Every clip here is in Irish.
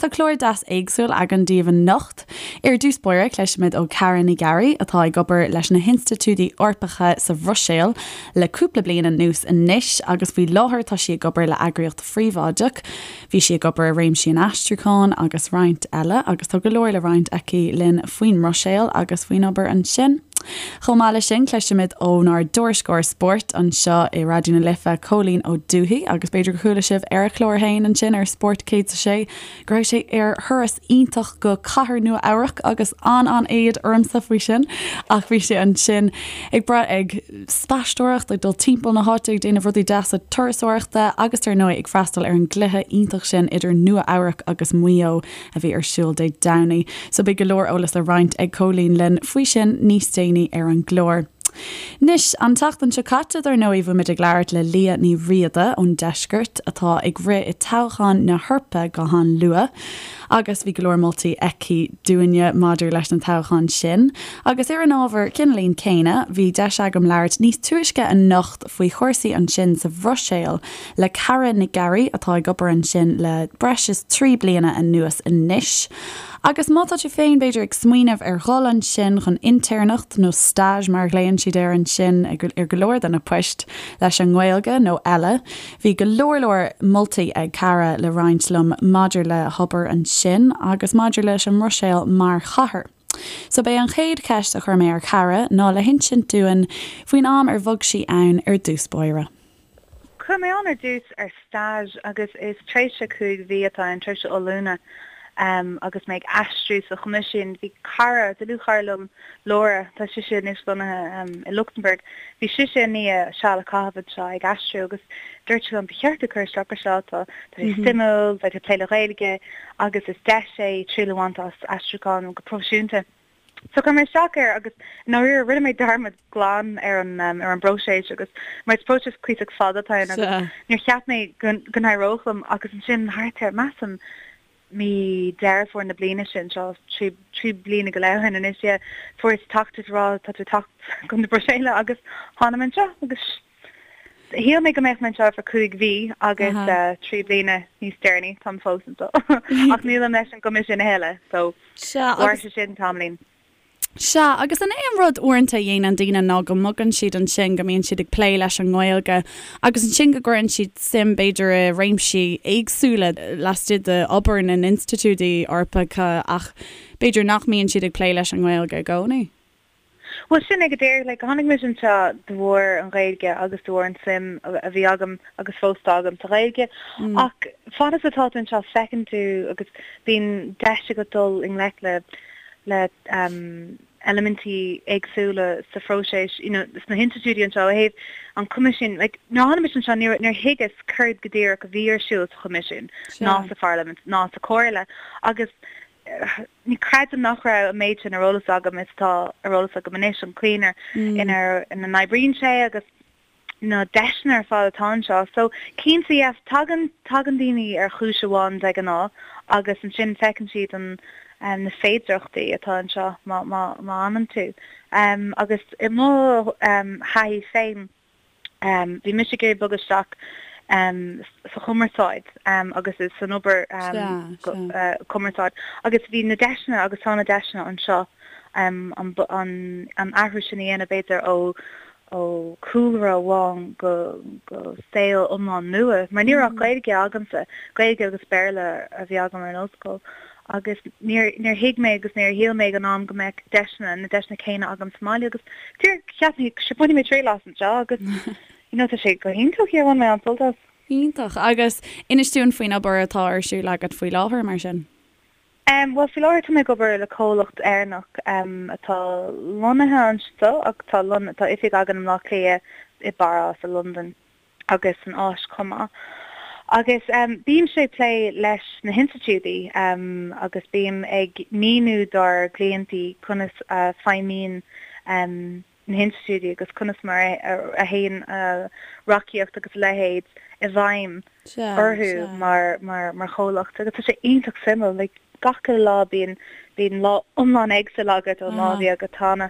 tá clár deas éagsúil againn daoibh anocht. Ar dtús báire, cloisfimid ó Cara Ní Ghearraigh, atá ag obair leis na hinstitiúidí Eorpacha sa Bhruiséil le cúpla bliain anuas anois agus faoi láthair tá sí ag obair le eagraíocht phríobháideach. Bhí sí ag obair i réimsí an aistriúcháin agus roinnt eile agus tá go leor le roinnt aici linn faoin mBruiséil agus faoin obair ansin. Chomh maith leis sin, cloisfimid ónár dtuairisceoir spóirt anseo i Raidió na Life, Cóilín Ó Dubhthaigh, agus b'fhéidir gur chuala sibh ar a chlár féin ansin ar Spórt 106 go raibh sé ar thuras iontach go cathair Nua Eabhrac agus an-an-éad ormsa faoi sin ach bhí sé ansin ag brath ag spaisteoireacht, ag dul timpeall na háite ag déanamh rudaí deasa turasóireachta agus ar ndóigh ag freastal ar an gcluiche iontach sin idir Nua Eabhrac agus Maigh Eo a bhí ar siúl Dé Domhnaigh. So beidh go leor eolas le roinnt ag Cóilín linn faoi sin níos déanaí ar an gclár. Anois, an tseachtain seo caite, dar ndóigh, bhí muid ag labhairt le Liadh Ní Riada ón Deisceart atá ag rith i toghchán na hEorpa go han-luath agus bhí go leor moltaí aici dúinne maidir leis na toghcháin sin. Agus ar an ábhar cineáilín céanna, bhí deis agam labhairt níos túisce anocht faoi chúrsaí ansin sa Bhruiséil le Cara Nic Ghearraigh atá ag obair ansin le breis is 3 bliana anuas anois. Agus má tá tú féin, b'fhéidir, ag smaoineamh ar dhul ansin chun intéirneacht nó stage mar a ghlaonn siad air ansin ar go leor de na poist leis an nGaeilge nó eile, bhí go leor leor moltaí ag Cara le roinnt liom maidir le hobair ansin agus maidir leis an mBruiséil mar chathair. So b'é an chéad cheist a chuir mé ar Chara ná le hinsint dúinn faoin am ar bhog sí ann ar dtús báire. Chuaigh mé ann ar dtús ar stage agus is tréimhse 5 mhí atá ann, tréimhse oiliúna agus mé ag aistriú sa Choimisiún. Bhí cara, dlúthchara liom, Laura, tá sise anois lonnaithe i Lucsamburg, bhí sise i ndiaidh seal a chaitheamh anseo ag aistriú agus dúirt sí liom, ba cheart duit cur isteach ar seo, tá sé suimiúil, beidh tú ag plé le Gaeilge agus is deis é triail a bhaint as aistriúchán go proifisiúnta. So chuir mé isteach air agus i ndáiríre rinne mé dearmad glan ar an ar an bpróiseas agus mar is próiseas cuíosach fada atá ann agus níor cheap mé go go n-éireodh liom agus ansin thart ar measaim mí Deireadh Fómhair na bliana sin seo trí trí bliana go leith ó shin anois yeah fuaireas teachtaireacht ag rá tá tú ag teacht chun na Bruiséile agus tháinig mé anseo agus shíl mé go mbeadh mé anseo for 5 mhí agus 3 bliana níos deireanaí táim fós anseo ach nílim leis an gCoimisiún a thuilleadh so Sea, Mhair agus. sé sin tamaillín. Sea, agus an é an rud uaireanta a dhéanann daoine ná go mbogann siad ansin, go mbíonn siad ag plé leis an nGaeilge agus ansin go gcuireann siad suim b'fhéidir i réimsí éagsúla laistigh d'obair na n-institiúidí Eorpacha ach b'fhéidir nach mbíonn siad ag plé leis an nGaeilge i gcónaí? Bhuel, sin é go díreach. Like, tháinig mise anseo de bharr an Ghaeilge agus de bharr an suim a bhí agam agus fós atá agam sa Ghaeilge. Ach fad is atá tú anseo feiceann tú agus bíonn deis agat dul i ngleic le le um, eilimintí éagsúla sa phróiseas, you know, sna hinstitiúidí anseo ó thaobh an Choimisiúin. Like, nuair a tháinig mise anseo níor níor thuigeas céard go díreach a bhí ar siúl sa Choimisiún ná sa Pharlaimint ná sa Chomhairle agus Ní creidim nach raibh an méid sin ar eolas agam is atá ar eolas agam anois, an chaoi ina ina n-oibríonn sé agus na deiseanna ar fad atá anseo. So, cinnte, yes, tagann tagann daoine ar chúis amháin de ghnáth agus ansin feiceann siad an na féidearthachtaí atá anseo má má má fhanann tú. Agus i mo thaithí féin, Bhí mise ag iarraidh bogadh isteach sa chumarsáid agus san obair cumarsáid agus bhí na deiseanna agus tá na deiseanna anseo an athrú sin a dhéanamh b'fhéidir ó ó chúlra amháin go go saol iomlán nua mar ní raibh ach Gaeilge agamsa, Gaeilge agus Béarla a bhí agam ar an ollscoil. agus níor níor thuig mé agus níor shíl mé ag an am go mbeadh deiseanna, na deiseanna céanna agam sa mbaile agus díreach cheap mé sure bainfidh mé triail as anseo agus you know tá sé go hiontach yeah bhain mé an-sult as. Iontach. Agus inis dúinn faoin obair atá ar siúl agat faoi láthair mar sin. Um bhuel faoi láthair tá mé ag obair le comhlacht Éireannach um atá lonnaithe anseo ach tá lon tá oifig againn i mBleá Cliath, i bPáras, i Londain. agus san Áis chomh maith. Agus bímse ag plé leis na hinstitiúidí agus bím ag míniú dár gcliantí conas a feidhmíonn na hinstitiúidí agus conas mar a théann reachtaíocht agus a leithéid i bhfeidhm orthu mar chomhlacht. Agus tá sé iontach suimiúil, like gach uile lá bíonn bíonn lá iomlán éagsúil agat ón lá a bhí agat cheana.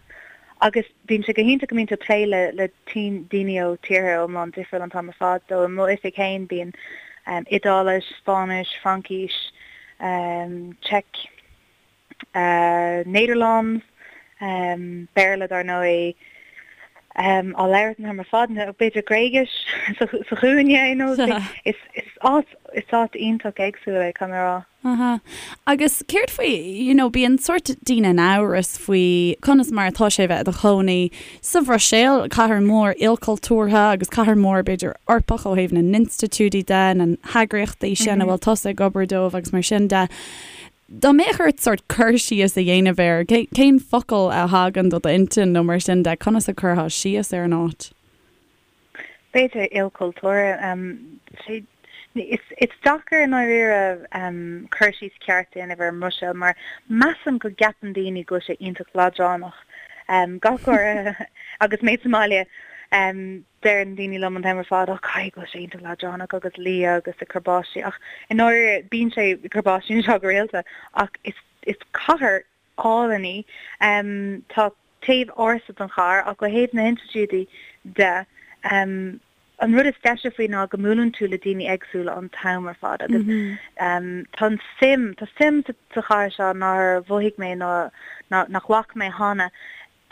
Agus bíonn sé go hiontach go mbíonn tú ag plé le le daoine ó tíortha iomlán difriúil an t-am ar fad. So i m'oifig féin bíonn Iodáilis, Spáinnis, Fraincis. Czech, Nederlands, Béarla dar ndóigh, á labhairt an t-am ar fad, nó b'fhéidir Gréigis sa chúinne, you know. Is áit, is áit iontach éagsúil é, caithfidh mé a rá. Aha. Agus céard faoi, you know, bíonn sórt daoine in amhras faoi conas mar atá sé bheith i do chónaí sa Bhruiséil, cathair mhór ilchultúrtha agus cathair mhór b'fhéidir Eorpach ó thaobh na n-institiúidí de, na heagraíochtaí sin a bhfuil tusa ag obair dóibh agus mar sin de. Dá mbeadh ort sórt cur síos a dhéanamh air, cén focal a thagann do d'intinn nó mar sin de, conas a chuirfeá síos ar an áit? B'fhéidir ilchultúrtha. Is deacair i ndáiríre cur síos ceart a dhéanamh ar an mBruiséil mar measaim go gceapann daoine go bhfuil sé iontach leadránach. Gach uair agus mé sa mbaile deireann daoine liom an t-am ar fad, 'Ó caithfidh go bhfuil sé iontach leadránach agus liath agus ag cur báistí' ach i ndáiríre bíonn sé ag cur báistí anseo go rialta ach is cathair álainn í. Tá taobh ársa den chathair ach ó thaobh na hinstitiúidí de, an rud is deise faoi ná go mbuaileann tú le daoine éagsúla an t-am ar fad agus tá an suim, tá suim sa chathair seo nár mhothaigh mé ná nach bhfaca mé cheana.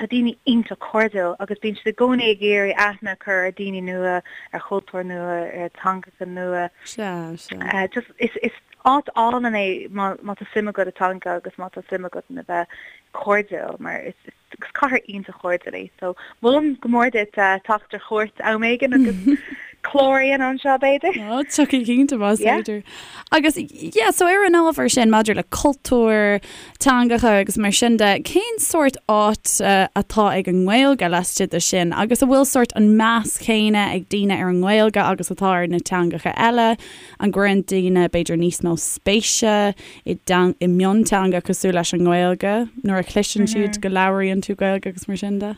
Tá daoine iontach cairdiúil agus bíonn siad i gcónaí ag iarraidh aithne a chur ar daoine nua, ar chultúir nua, ar theangacha nua. Sea, sea. Just, is, is áit álainn é má, má tá suim agat i dteanga agus má tá suim agat in a bheith cairdiúil mar is, is, is cathair iontach chairdiúil í. So, molaim go mór duit teacht ar chuairt am éigin agus clár a dhéanamh anseo b'fhéidir. Ó, tiocfaidh cinnte más féidir. Agus, yeah, so ar an ábhar sin maidir le cultúr, teangacha agus mar sin de, cén sórt áit atá ag an nGaeilge laistigh de sin agus an bhfuil sórt an meas céanna ag daoine ar an nGaeilge agus atá ar na teangacha eile? An gcuireann daoine b'fhéidir níos mó spéise i i mionteanga cosúil leis an nGaeilge nuair a chloiseann siad go labhraíonn tú Gaeilge agus mar sin de?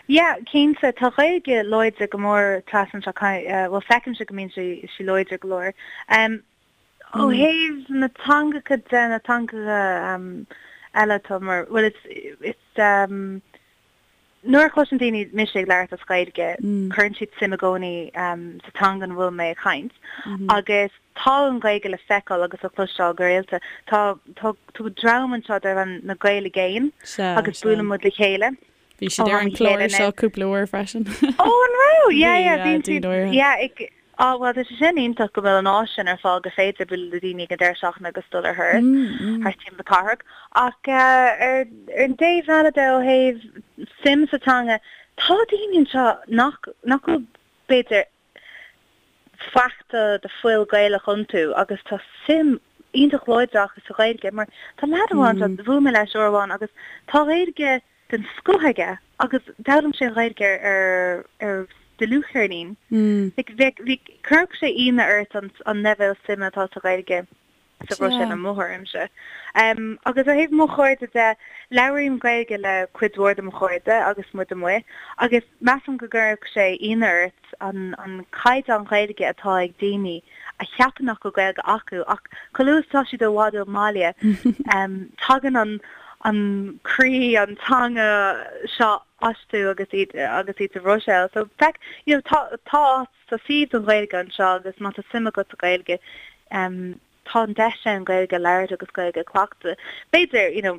Yeah, cinnte, tá Gaeilge láidir go mór trasna anseo, bhuel feicimse go mbíonn sí láidir go leor. Ó thaobh na teangacha de, na teangacha eile atá mar, bhuel it's, it's, nuair a chloiseann daoine mise ag labhairt as Gaeilge, cuireann siad suim i gcónaí sa teanga ina bhfuil mé ag caint agus tá an Ghaeilge le feiceáil agus le cloisteáil go rialta. Tá, tá, tá dream anseo darb ainm na Gaeil i gCéin agus buaileann muid le chéile. Bhí siad ar an chlár seo cúpla uair freisin. Ó an raibh? Yeah yeah bhíonn siad yeah ag á bhuel tá sé sin iontach go bhfuil an áis sin ar fáil gur féidir bualadh le daoine ag an deireadh seachtaine agus dul ar thuras thart timpeall na cathrach. Ach ar an dtaobh eile de ó thaobh suim sa teanga tá daoine anseo nach nach bhfuil b'fhéidir faic de fuil Gaelach iontu agus tá suim iontach láidir acu sa Ghaeilge mar tá leaid amháin anseo, bhuail mé leis uair amháin agus tá Gaeilge den scoth aige agus d'fhoghlaim sé an Ghaeilge ar ar dlúthcheirnín. Like bheadh, bhí, chuirfeadh sé ionadh ort an an leibhéal suime atá sa Ghaeilge sa Bhruiséil i mo thuairimse. Agus ó thaobh mo chairde de, labhraím Gaeilge le cuid mhór de mo chairde agus muid amuigh agus measaim go gcuirfeadh sé ionadh ort an an caighdeán Gaeilge atá ag daoine a cheapann nach bhfuil Gaeilge acu ach chomh luath is atá siad i bhfad ón mbaile tagann an an croí, an teanga seo astu agus iad agus iad sa Bhruiséil. So feic, you know, tá tá áit, tá suíomh don Ghaeilge anseo agus má tá suim agat sa Ghaeilge tá an deis ann Gaeilge a labhairt agus Gaeilge a chleachtadh. B'fhéidir, you know,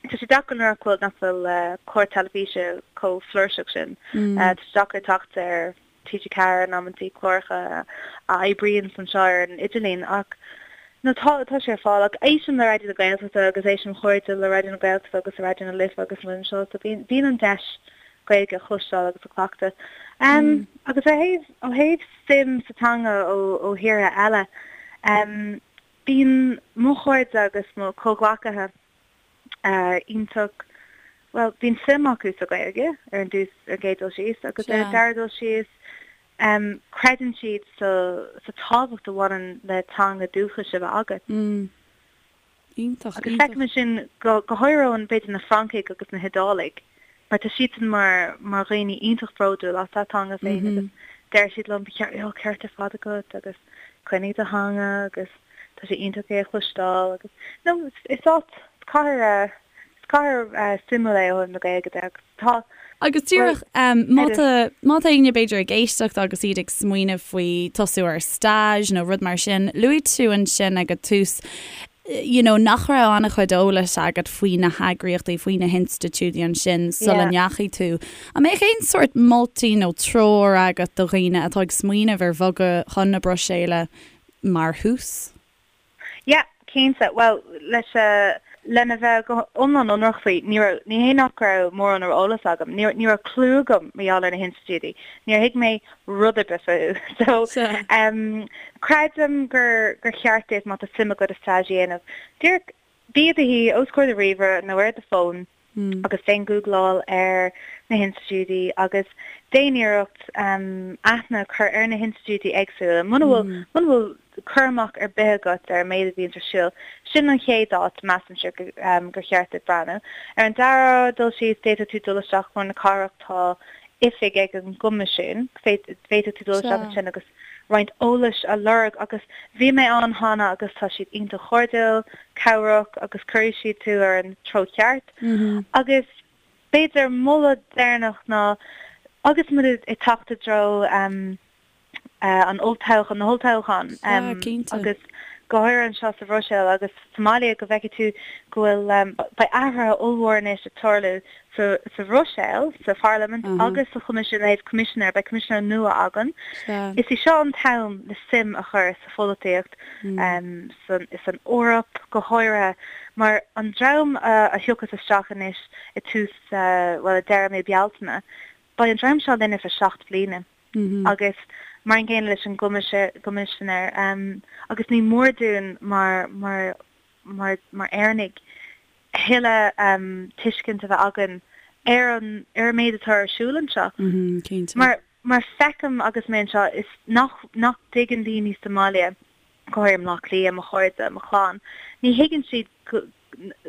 Tá sé deacair nuair nach bhfuil nach bhfuil clár teilifíse chomh flúirseach sin. Tá sé deacair teacht ar TG4 in amantaí, cláracha a oibríonn anseo ar an idirlíon ach no tá tá sé ar fáil. Ach éistim le Raidió na Gaeltachta agus éistim chairde le Raidió na Gaeltachta agus Raidió na Life agus muid anseo so bíonn bíonn an deis Gaeilge a chloisteáil agus a chleachtadh. Agus ó thaobh ó thaobh suim sa teanga ó ó thíortha eile, Bíonn mo chairde agus mo chomhghleacaithe iontach, bhuel, bíonn suim acu sa Ghaeilge ar an dtús, ar an gcéad dul síos, agus ar an dara dul síos, creideann siad sa sa tábhacht a bhaineann le teanga dúchais a bheith agat. Iontach, Agus feicim é sin go go háirithe ó b'fhéidir na Francaigh agus na hIodálaigh, mar tá siadsan mar mar dhaoine iontach bródúil as a dteanga féin agus deir siad liom, ba cheart, oh, ceart ar fad agat agus coinnigh do theanga agus tá sé iontach é a chloisteáil agus no is áit, is cathair, is cathair suimiúil é ó thaobh na Gaeilge de agus tá Agus díreach, má tá, má tá éinne b'fhéidir ag éisteacht agus iad ag smaoineamh faoi tosú ar stage nó rud mar sin, luaigh tú ansin ag an tús. you know, nach raibh an-chuid eolais agat faoi na heagraíochtaí, faoi na hinstitiúidí ansin sula ndeachaigh tú. An mbeadh aon sórt moltaí nó treoir agat do dhaoine atá ag smaoineamh ar bhogadh chun na Bruiséile mar thús? Yeah, cinnte. Bhuel, leis, lena bheith go hiomlán ionraic faoi, ní raibh, ní hé nach raibh mórán ar eolas agam, ní, ní raibh clue agam mar gheall ar na hinstitiúidí. Níor thuig mé rud ar bith fúthu. So, em, creidim gur, gur cheart duit má tá suim agat i stage a dhéanamh, díreach bí i do shuí os comhair do ríomhaire nó ar do fón, agus déan gúgláil ar na hinstitiúidí agus déan iarracht aithne a chur ar na hinstitiúidí éagsúla. Muna bhfuil muna bhfuil cur amach ar bith agat ar an méid a bhíonns ar siúl, sin an chéad áit, measaimse, gur cheart duit breathnú. Ar an dara dul síos, d'fhéadfadh tú dul isteach lár na cathrach, tá oifig ag an gCoimisiún, féadfaidh tú dul isteach ansin agus roinnt eolais a lorg agus bhí mé ann cheana agus tá siad iontach cairdiúil, cabhrach agus cuirfidh siad tú ar an treo ceart. Agus b'fhéidir moladh deireanach ná agus muid ag teacht i dtreo an olltoghchán, na holltoghcháin agus go háirithe anseo sa Bhruiséil agus sa mbaile go bhfeicfidh tú go bhfuil, beidh athruithe ollmhór anois ag tarlú sa sa Bhruiséil, sa Pharlaimint agus sa Choimisiún ó thaobh Coimisinéir, beidh Coimisinéir nua againn. Is í seo an t-am le suim a chur sa pholaitíocht san san Eoraip go háirithe mar an dream a thiocfas isteach anois i tús, bhuel i deireadh mí Bealtaine, beidh an dream seo linn ar feadh 7 bliana agus mar an gcéanna leis an gCoimisinéir agus ní mór dúinn mar mar mar mar Éireannaigh thuilleadh tuiscint a bheith againn ar an ar an méid atá ar siúl anseo. Mar mar feicim agus mé anseo is nach nach dtuigeann daoine sa mbaile, go háirithe i mBleá Cliath, mo chairde, mo chlann, ní thuigeann siad go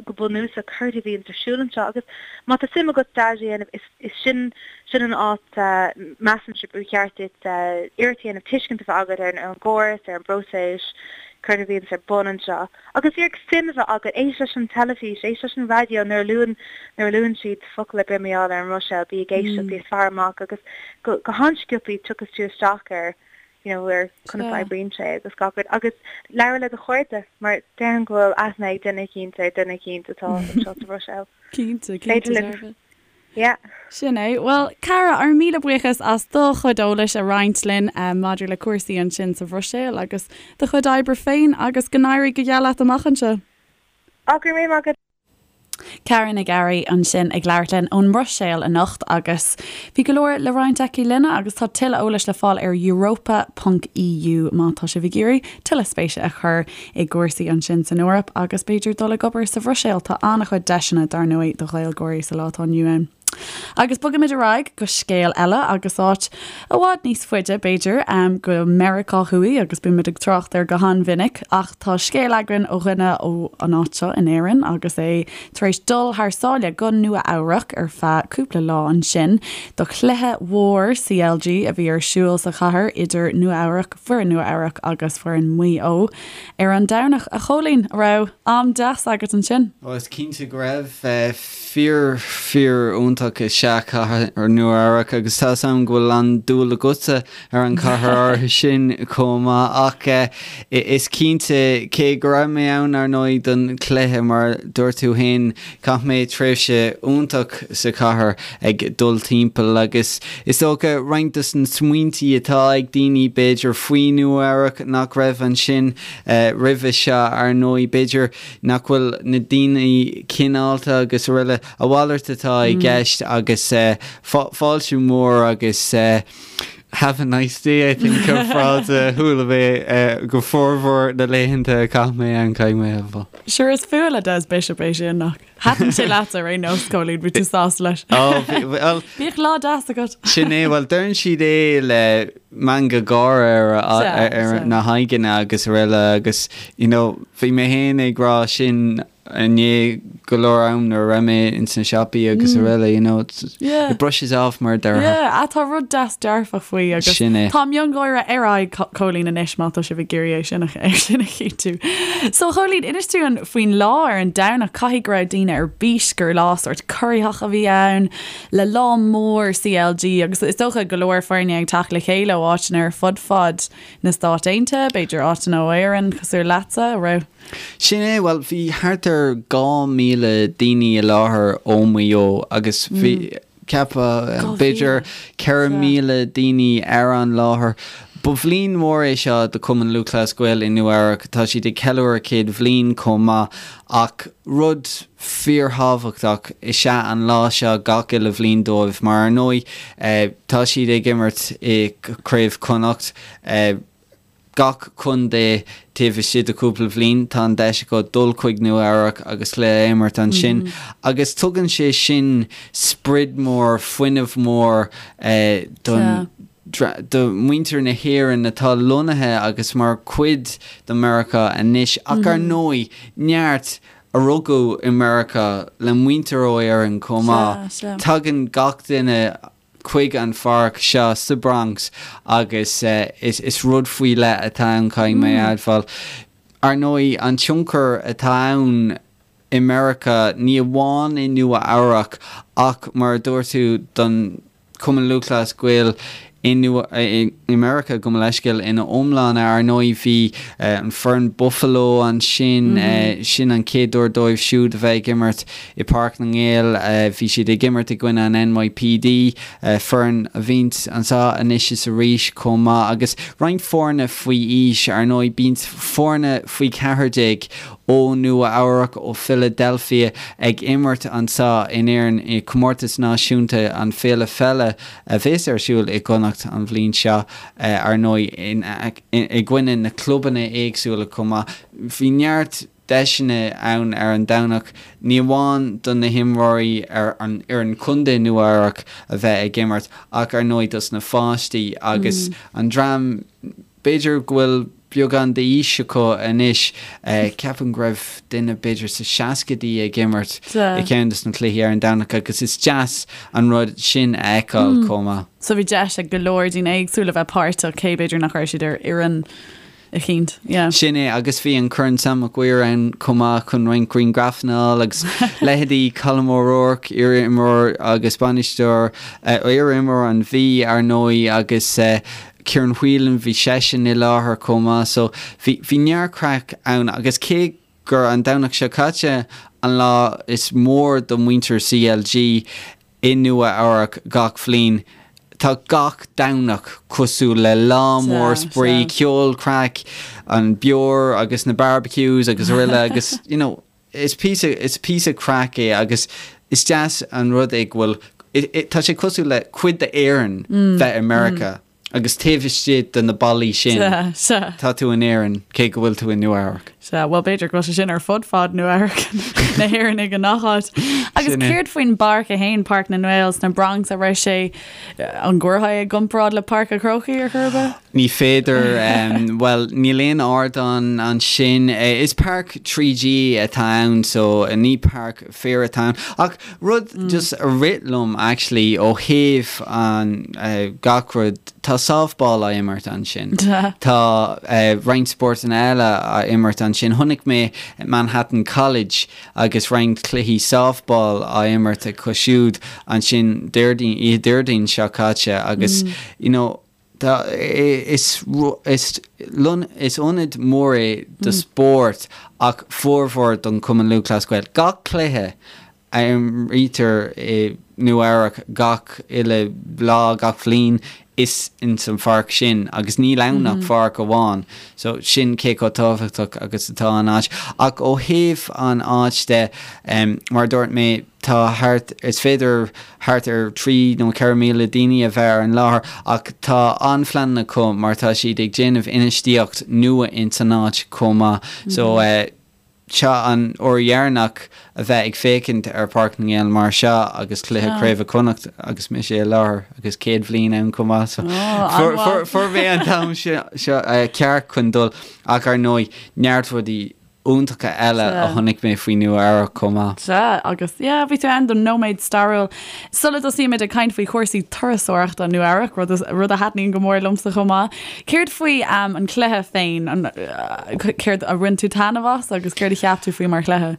go bunúsach céard a bhíonns ar siúl anseo agus má tá suim agat stage a dhéanamh is is sin sin an áit measaimse gur cheart duit iarracht a dhéanamh tuiscint a bheith agat ar an gcóras, ar an bpróiseas, céard a bhíonns ar bun anseo. Agus iarraidh suim a bheith agat, éist leis an teilifís, éist leis an raidió nuair a luann, nuair a luann siad focal ar bith mar gheall ar an mBruiséil, bí ag éisteacht, bí ag faire amach agus go, go han-sciobthaí tiocfas tú isteach ar, you know, ar conas a oibríonn sé agus gach rud. Agus labhair le do chairde mar déarfainn go bhfuil aithne ag duine eicínt ar duine eicínt atá anseo sa Bhruiséil. Cinnte, cinnte dearfa. Yeah. Sin é. Bhuel, Cara, ár míle buíochas as do chuid eolais a roinnt linn maidir le cúrsaí ansin sa Bhruiséil agus do chuid oibre féin agus go n-éirí go geal leat amach anseo. Á, go raibh míle maith agat. Cara Nic Fhearraigh ansin ag labhairt linn ón mBruiséil anocht agus bhí go leor le roinnt aici linne agus tá tuilleadh eolais le fáil ar europa ponc EU má tá sibh ag iarraidh tuilleadh spéise a chur i gcúrsaí ansin san Eoraip agus b'fhéidir dul ag obair sa Bhruiséil. Tá an-chuid deiseanna, dar ndóigh, do Ghaeilgeoirí sa lá atá inniu ann. Agus bogaimid ar aghaidh go scéal eile agus áit i bhfad níos faide, b'fhéidir, go Meiriceá Thuaidh agus bímid ag trácht air go han-mhinic ach tá scéal againn ó dhuine ó an áit seo in Éirinn agus é tar éis dul thar sáile go Nua Eabhrac ar feadh cúpla lá ansin do chluiche mhór CLG a bhí ar siúl sa chathair idir Nua Eabhrac foireann Nua Eabhrac agus foireann Mhaigh Eo ar an Domhnach. A Chóilín, an raibh am deas agat ansin? Ó, is cinnte go raibh. Fíor, fíor iontach is ea cathair Nua Eabhrac agus tá 'fhios a'm go bhfuil an-dúil agatsa ar an chathair áirithe sin chomh maith ach is cinnte, cé go raibh mé ann ar ndóigh don chluiche mar dúirt tú féin, Chaith mé tréimhse iontach sa chathair ag dul timpeall agus is dócha roinnt dos na smaointí atá ag daoine b'fhéidir faoi Nua Eabhrac nach raibh ansin roimhe seo ar ndóigh b'fhéidir nach bhfuil na daoine cineálta agus araile a mhalairt atá i gceist agus fáilte mór agus Have a nice day I think an frása a chuala mé go formhór na laethanta a chaith mé ann caithfidh mé a rá. Sure is fuath le Des Bishop é sin nach. Thaitin sé leat ar aon nós Cóilín, bhí tú sásta leis. Ó bhí, bhuel. Bíodh lá deas agat. Sin é, bhuel deireann siad é le meangadh gáire ar ar na haghaidheanna agus araile agus you know bhí mé féin ag rá sin inné. go leor am nuair a raibh mé ins na siopaí agus araile, you know, it brushes off mar a déarfá. Yeah, tá rud deas dearfach faoi agus Sin é. tá miongháire ar aghaidh Chóilín anois má tá sibh ag iarraidh é sin a é sin a chinntiú. So Chóilín, inis dúinn faoin lá ar an Domhnach, caithfidh go raibh daoine ar bís gur lá sórt corraitheach a bhí ann, le lá mór CLG agus is dócha go leor foirne ag teacht le chéile ó áiteanna ar fud fad na Stát Aontaithe, b'fhéidir áiteanna ó Éirinn cosúil leatsa, a raibh? Sin é, bhuel bhí thart ar 2,000 daoine i láthair ó Mhaigh Eo agus bhí, cheapfá, b'fhéidir 4,000 daoine ar an láthair. Ba bhliain mhór é seo do Chumann Lúthchleas Gael i Nua Eabhrac, tá siad ag ceiliúradh 100 bhliain chomh maith ach rud fíorthábhachtach is ea an lá seo gach uile bhliain dóibh mar ar ndóigh tá siad ag imirt i gCraobh Chonnacht. Gach contae taobh istigh de chúpla bhliain tá an deis acu dul chuig Nua Eabhrac agus cluiche a imirt ansin agus tugann sé sin sprid mór, fuinneamh mór don do mhuintir na hÉireann atá lonnaithe agus mar chuid de Meiriceá anois ach ar ndóigh neart a rugadh i Meiriceá le muintir ó Éirinn chomh maith. Tagann gach duine chuig an pháirc seo sa Bronx agus is rud faoi leith atá ann, caithfidh mé a admháil. Ar ndóigh, an tionchar atá ann i Meiriceá, ní amháin i Nua Eabhrac ach mar a dúirt tú don Chumann Lúthchleas Gael i i Meiriceá, gabh mo leithscéal, ina iomláine. Ar ndóigh bhí an foireann Buffalo ansin, sin an chéad uair dóibh siúd a bheith ag imirt i Páirc na nGael. Bhí siad ag imirt i gcoinne an NYPD, foireann a bhíonns anseo anois is arís chomh maith, agus roinnt foirne faoi aois. Ar ndóigh bíonns foirne faoi 14 ó Nua Eabhrac, ó Philadelphia ag imirt anseo in Éirinn i Comórtas Náisiúnta an Féile Pheile a bheas ar siúl i gConnacht an bhliain seo, ar ndóigh, i gcoinne na clubanna éagsúla chomh maith. Bhí neart deiseanna ann ar an Domhnach, ní amháin do na himreoirí ar an fhoireann contae Nua Eabhrac a bheith ag imirt ach ar ndóigh dos na pháistí agus an dream B'fhéidir go bhfuil beagán d'aois acu anois. Ceapaim go raibh duine b'fhéidir sa seascaidí ag imirt i gceann de na cluichí ar an Domhnach agus is deas an rud sin a fheiceáil chomh maith. So bhí deis ag go leor daoine éagsúla bheith páirteach, cé b'fhéidir nach raibh siad ar fhoireann eicínt. Yeah. Sin é, agus bhí an Corn Sam Mac Uidhir ann chomh maith chun roinnt grianghrafanna a fháil agus leithéidí Colm O'Rourke, iar-imreoir agus bainisteoir, iar-imreoir an Mhí, ar ndóigh, agus Ciarán Whelan, bhí seisean i láthair chomh maith so bhí, bhí neart craic ann agus cé gur an Domhnach seo caite an lá is mór do mhuintir CLG i Nua Eabhrac gach bhliain, tá gach Domhnach cosúil le lá mór spraoi, ceol, craic, an beoir agus na barbecues agus araile agus you know is píosa, is píosa craic é agus is deas an rud é go bhfuil, tá sé cosúil le cuid d'Éirinn bheith i Meiriceá agus taobh istigh de na ballaí sin tá tú in Éirinn cé go bhfuil tú i Nua Eabhrac. Sea, bhuel b'fhéidir go bhfuil sé sin ar fud fad Nua Eabhrac, na hÉireannaigh i ngach áit. Agus céard faoin bpáirc é féin, Páirc na nGael sna Bronx, an raibh sé, an gcuirfeá é i gcomparáid le Páirc an Chrócaigh ar chor ar bith? Ní féidir, bhuel, níl aon ardán ansin. Is páirc 3G atá ann so ní páirc féir atá ann. Ach rud just a rith liom actually ó thaobh an gach rud, tá softball á imirt ansin. Tá roinnt spórtanna eile á imirt ansin. Chonaic mé Manhattan College agus roinnt cluichí softball á imirt acu siúd ansin Déardaoin, oíche Déardaoin seo caite agus you know, Tá, is, is, is ionad mór é do spórt ach formhór don Chumann Lúthchleas Gael. Gach cluiche a imrítear i Nua Eabhrac gach uile lá, gach bhliain, is ins an pháirc sin agus níl ann ach pháirc amháin. So sin cé chomh tábhachtach agus atá an áit. Ach ó thaobh an áit de, mar a dúirt mé, tá thart, is féidir thart ar 3 nó 4,000 daoine a bheith ar an láthair ach tá an-phleananna acu mar tá siad ag déanamh infheistíocht nua ins an áit chomh maith. So seo an uair dheireanach a bheith ag féachaint ar Páirc na nGael mar seo agus cluiche Craoibhe Chonnacht agus mise i láthair agus 100 bhliain ann chomh maith so fuair mé an t-am seo ceart chun dul ach ar ndóigh neart rudaí. iontacha eile a chonaic mé faoi Nua Eabhrac chomh maith. Sea, agus yeah, bhí tú ann don nóiméad stairiúil. Sula dtosaímid ag caint faoi chúrsaí turasóireachta Nua Eabhrac, rud, rud a thaitníonn go mór liomsa chomh maith, céard faoi an cluiche féin? An, céard a bhain tú taitneamh as agus céard a cheap tú faoi mar chluiche?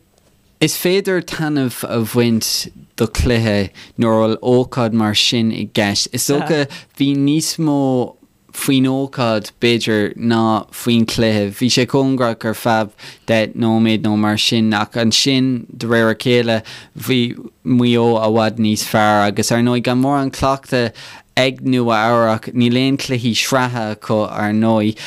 Is féidir taitneamh a bhaint do chluiche nuair a bhfuil ócáid mar sin i gceist. Is dócha bhí níos mó faoin ócáid, b'fhéidir, ná faoin chluiche. Bhí sé cóngarach ar feadh 10 nóiméad nó mar sin ach ansin, de réir a chéile, bhí Maigh Eo i bhfad níos fearr agus, ar ndóigh, gan mórán cleachtaidh ag Nua Eabhrac, níl aon chluichí sraithe acu, ar ndóigh.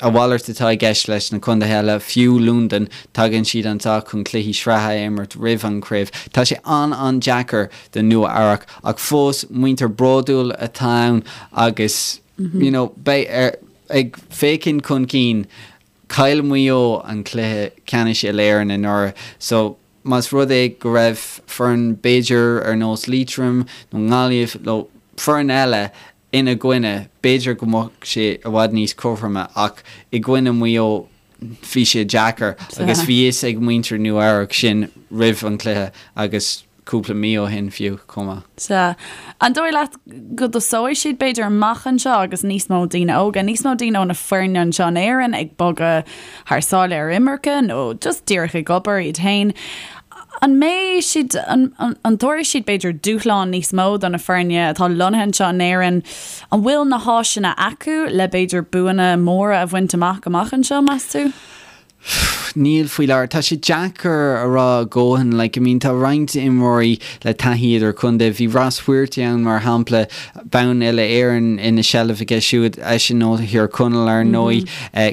A mhalairt atá i gceist leis na contaetha eile, fiú Londain, tagann siad anseo chun cluichí sraithe a imirt roimh an chraobh. Tá sé an-an-deacair do Nua Eabhrac ach fós muintir bródúil atá ann agus you know beidh ar ag féachaint chun cinn. Chaill Maigh Eo an cluiche ceannais Uile-Éireann anuraidh so más rud é go raibh foireann b'fhéidir ar nós Liatroim nó nGaillimh nó foireann eile ina gcoinne, b'fhéidir go mbeadh sé i bhfad níos cothroime ach i gcoinne Mhaigh Eo bhí sé deacair agus bhí fhios ag muintir Nua Eabhrac sin roimh an chluiche agus cúpla mí ó shin fiú chomh maith. Sea. An dóigh leat go dtosóidh siad b'fhéidir amach anseo agus níos mó daoine óga, níos mó daoine ó na foirne anseo in Éirinn ag bogadh thar sáile ar imirce nó just díreach ag obair iad féin? An mbeidh siad, an dtabharfaidh siad b'fhéidir dúshlán níos mó do na foirne atá lonnaithe anseo in Éirinn? An bhfuil na háiseanna acu le b'fhéidir buanna móra a bhaint amach amach anseo, meas tú? Níl faoi láthair. Tá sé deacair a rá a dhóthain. Like, I mean, tá roinnt imreoirí le taithí idir-chontae. Bhí Ross Whearty ann, mar shampla, bonn Uile-Éireann ina sheilbh aige siúd, eisean ó Thír Chonaill, ar ndóigh.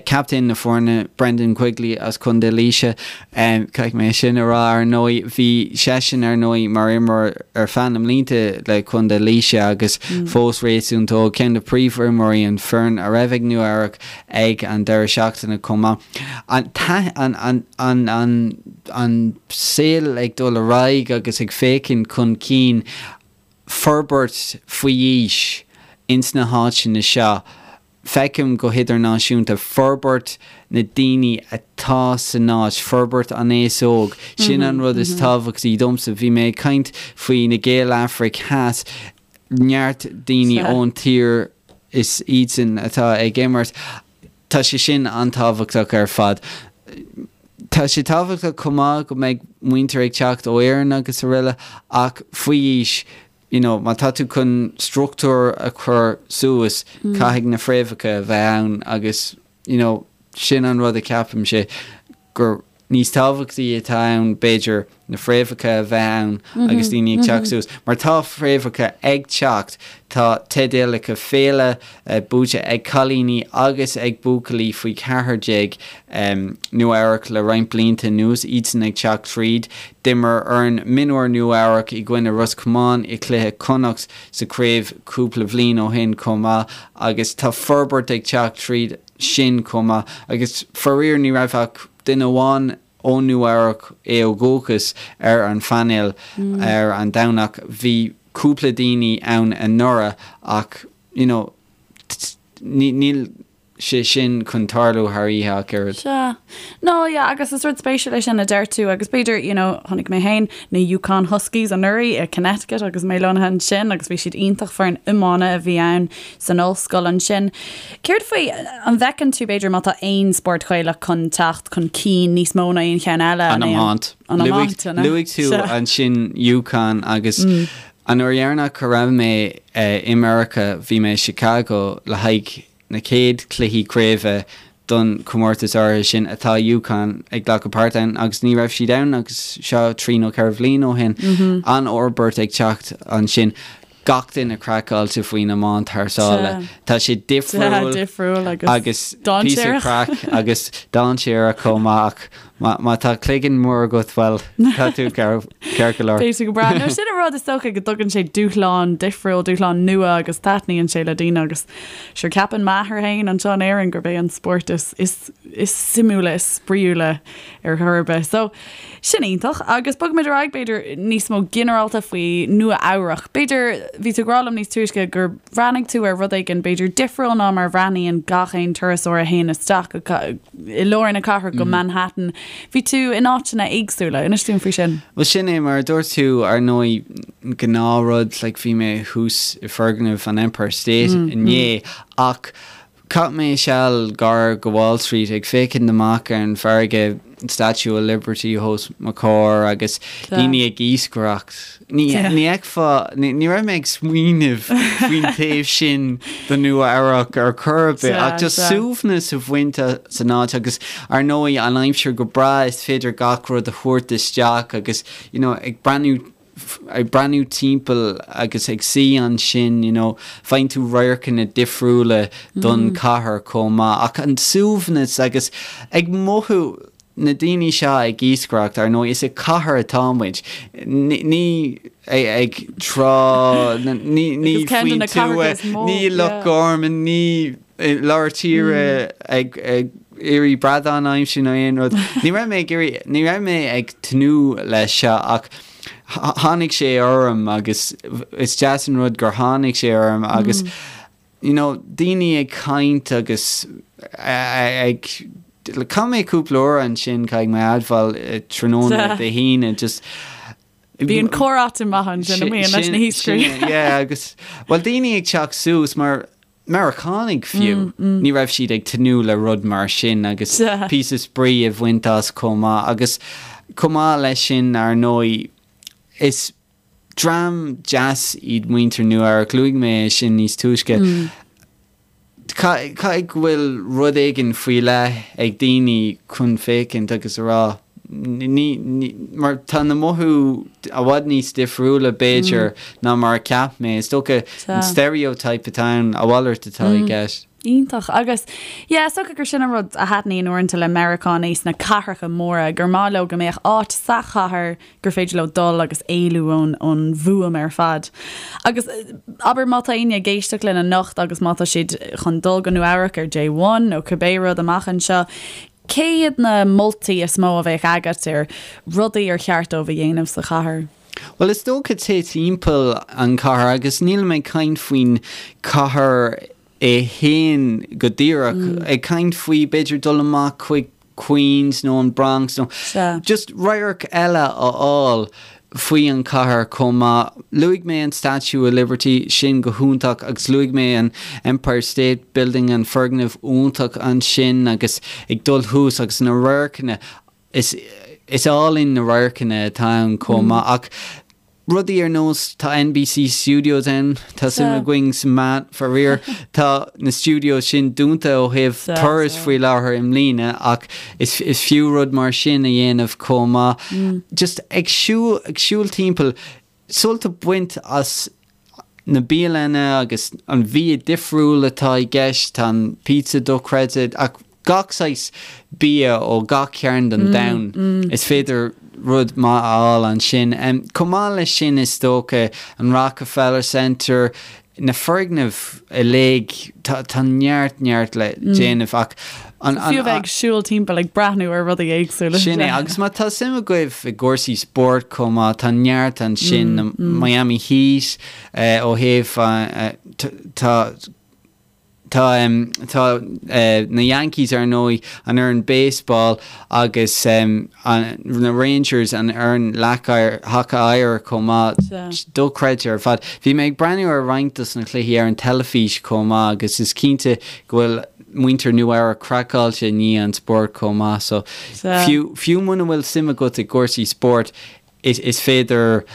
Captaen na foirne, Brendan Quigley as Contae Laoise. Caithfidh mé sin a rá, ar ndóigh. Bhí seisean, ar ndóigh, mar imreoir ar feadh na mblianta le Contae Laoise agus fós réasúnta óg. Ceann de phríomhimreoirí an foireann a raibh ag Nua Eabhrac ag an deireadh seachtaine chomh maith. An an an an saol ag dul ar aghaidh agus ag féachaint chun cinn. Forbairt faoi aois ins na háiteanna seo. Feicim go hidirnáisiúnta forbairt na daoine atá san áit, forbairt an aos óg, sin an rud is tábhachtaí domsa. Bhí mé ag caint faoi na Gaeil Afraic Theas, neart daoine ón tír is iadsan atá ag imirt. Tá sé sin an-tábhachtach ar fad. Tá sé tábhachtach chomh maith go mbeidh muintir ag teacht ó Éirinn agus araile ach faoi aois, you know, má tá tú chun struchtúr a chur suas, caithfidh na fréamhacha a bheith ann agus, you know, sin an rud a cheapaimse gur níos tábhachtaí atá ann, b'fhéidir, na fréamhacha a bheith ann agus daoine ag teacht suas. Mar tá fréamhacha ag teacht, tá teidealacha féile buaite ag cailíní agus ag buachaillí faoi 14 Nua Eabhrac le roinnt blianta anuas, iadsan ag teacht tríd. D'imir foireann mionúir Nua Eabhrac i gcoinne Ros Comáin i gcluiche Chonnacht sa chraobh cúpla bhliain ó shin chomh maith agus tá forbairt ag teacht tríd sin chomh maith agus faraor ní raibh ach duine amháin ó Nua Eabhrac, é ó dhúchas, ar an phainéal ar an Domhnach. Bhí cúpla daoine ann anuraidh ach you know níl sé sin chun tarlú thar oíche ach oiread. Sea. No, yeah, agus is rud spéisiúil é sin a deir tú agus b'fhéidir, you know, chonaic mé féin na UConn Huskies anuraidh i Connecticut agus mé lonnaithe ansin agus bhí siad iontach foireann iomána a bhí ann san ollscoil ansin. Céard faoi, an bhfeiceann tú b'fhéidir má tá aon spórt Gaelach chun teacht chun cinn níos mó ná aon cheann eile? An iomáint. An iomáint, an ea? Luaigh tú ansin UConn agus an uair dheireanach a raibh mé i Meiriceá bhí mé i Chicago le haghaidh na chéad chluichí craoibhe don chomórtas áirithe sin atá UConn ag glacadh páirt ann agus ní raibh siad ann agus seo trí nó ceithre bhliain ó shin. An-fhorbairt ag teacht ansin. Gach duine craiceáilte faoin iomáint thar sáile. Tá sé difriúil agus píosa craic agus dainséarach chomh maith ach má tá cloigeann mór agat, bhuel, tá tú ceart go leor. Beidh tú go breá. No, sin an rud is dócha go dtugann sé dúshlán difriúil, dúshlán nua agus taitníonn sé le daoine agus Sure, ceapann m'athair féin anseo in Éirinn gurb é an spórt is, is, is suimiúla, is spraíúla ar chor ar bith. So, sin iontach. Agus bogfaimid ar aghaidh, b'fhéidir, níos mó ginearálta faoi Nua Eabhrach. B'fhéidir. bhí tú ag rá liom níos túisce gur bhreathnaigh tú ar rud éigin b'fhéidir difriúil ná mar a bhreathnaíonn gach aon turasóir a théann isteach i lár na cathrach go Manhattan. Bhí tú in áiteanna éagsúla. Inis dúinn faoi sin. Bhuel sin é, mar a dúirt tú, ar ndóigh, gnáthrud, like bhí mé thuas i foirgneamh an Empire State inné ach Chaith mé seal gar go Wall Street ag féachaint amach ar an bhfarraige, Statue of Liberty os mo chomhair agus daoine ag iascaireacht. Ní fheicfeá, ní raibh mé ag smaoineamh faoin taobh sin de Nua Eabhrac ar chor ar bith ach just suaimhneas a bhaint as an áit agus ar ndóigh an aimsir go breá is féidir gach rud a thabhairt isteach agus you know ag breathnú ag breathnú timpeall agus ag suí ansin, you know, faigheann tú radharcanna difriúla don chathair chomh maith. Ach an suaimhneas agus ag mothú na daoine seo ag iascaireacht, ar ndóigh, is i cathair atá muid. Ní ag trá, ní faoin tuath, ní i Loch Garman, ní i lár tíre ag iarraidh bradán a aimsiú nó aon rud. Ní raibh mé ag iarraidh, ní raibh mé ag tnúth leis seo ach tháinig sé orm agus is deas an rud gur tháinig sé orm agus you know daoine ag caint agus ag chaith mé cúpla uair ansin caithfidh mé a admháil tráthnóna Dé hAoine just Bíonn comhráite maith ansin a mbíonn leis na hiascairí. Yeah agus well daoine ag teacht suas mar Meiriceánaigh fiú, ní raibh siad ag tnúth le rud mar sin agus píosa spraoi a bhaint as chomh maith. Agus chomh maith leis sin, ar ndóigh, is dream deas iad muintir Nua Eabhrac, luaigh mé é sin níos túisce. Caithfidh go bhfuil rud éigin faoi leith ag daoine chun féachaint agus a rá, Ní, ní, mar tá na mothú i bhfad níos difriúla, b'fhéidir, ná mar a cheap mé. Is dócha an stereotype atá ann, a mhalairt atá i gceist. Iontach. Agus, yeah, is dócha gur sin an rud a thaitníonn uaireanta le Meiriceánaigh sna cathracha móra, gur maith leo go mbeadh áit sa chathair gur féidir leo dul agus éalú ón, ón bhfuaim ar fad. Agus, abair, má tá éinne ag éisteacht linn anocht agus má tá siad chun dul go Nua Eabhrac ar Day One nó cibé rud amach anseo, Cé hiad na moltaí is mó a bheadh agat ar rudaí ar cheart dóibh a dhéanamh sa chathair? Bhuel, is dócha téigh timpeall an chathair agus nílim ag caint faoin chathair é féin go díreach, ag caint faoi b'fhéidir dul amach chuig Queens nó an Bronx nó just radharc eile a fháil. faoi an chathair chomh maith. Luaigh mé an Statue of Liberty, sin go hiontach, agus luaigh mé an Empire State Building, an foirgneamh iontach ansin agus ag dul thuas agus na radharcanna, is is álainn na radharcanna atá ann chomh maith. Ach rudaí ar nós, tá NBC Studios ann, tá suim againn sa meán, faraor, tá na studios sin dúnta ó thaobh turas faoi láthair i mbliana ach Is fiú rud mar sin a dhéanamh chomh maith. Just ag siúl, ag siúl timpeall, sult a bhaint as na bialanna agus an bhia difriúil atá i gceist, tá an pizza dochreidte ach gach saghas bia ó gach cearn den domhan, is féidir rud maith a fháil ansin. Chomh maith leis sin is dócha an Rockefeller Center, na foirgnimh uilig, tá neart, neart le déanamh ach an. Fiú a bheith ag siúl timpeall ag breathnú ar rudaí éagsúla. Sin é, agus má tá suim agaibh i gcúrsaí spóirt chomh maith, tá neart ansin, na Miami Heat ó thaobh, tá, Tá tá na Yankees ar ndóigh, an fhoireann baseball agus na Rangers, an fhoireann leac haca oighir chomh maith. Dochreidte ar fad. Bhí mé ag breathnú ar roinnt dos na cluichí ar an teilifís chomh maith agus is cinnte go bhfuil muintir Nua Eabhrac craiceáilte i ndiaidh an spóirt chomh maith. So fiú fiú muna bhfuil suim agat i gcúrsaí spóirt is is féidir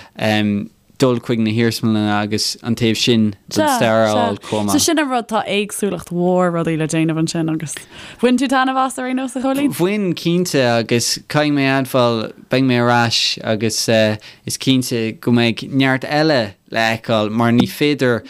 dul chuig na hiarsmalanna agus an taobh sin den stair a fháil chomh maith. So sin an rud, tá éagsúlacht mhór rudaí le déanamh ansin agus bhain tú taitneamh as ar aon nós, a Chóilín? Bhain, cinnte, agus caithfidh mé a admháil, beidh mé ar ais agus is cinnte go mbeidh neart eile le fheiceáil mar ní féidir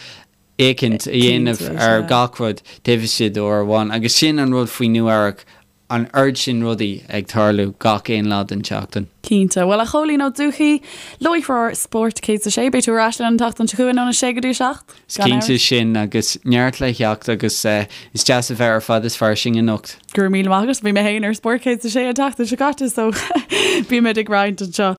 féachaint a dhéanamh ar gach rud taobh istigh d'uair amháin agus sin an rud faoi Nua Eabhrac, an oiread sin rudaí ag tarlú gach aon lá den tseachtain. Cinnte. Bhuel, a Chóilín Ó Dubhthaigh, láithreoir Spórt 106, beidh tú ar ais linn an tseachtain seo chugainn óna 6 go dtí 7. Is cinnte sin agus neart le theacht agus is deas a bheith ar Fad is Fairsing anocht. Go raibh míle maith agat. Bhí mé féin ar Spórt 106 an tseachtain seo caite so bímid ag roinnt anseo.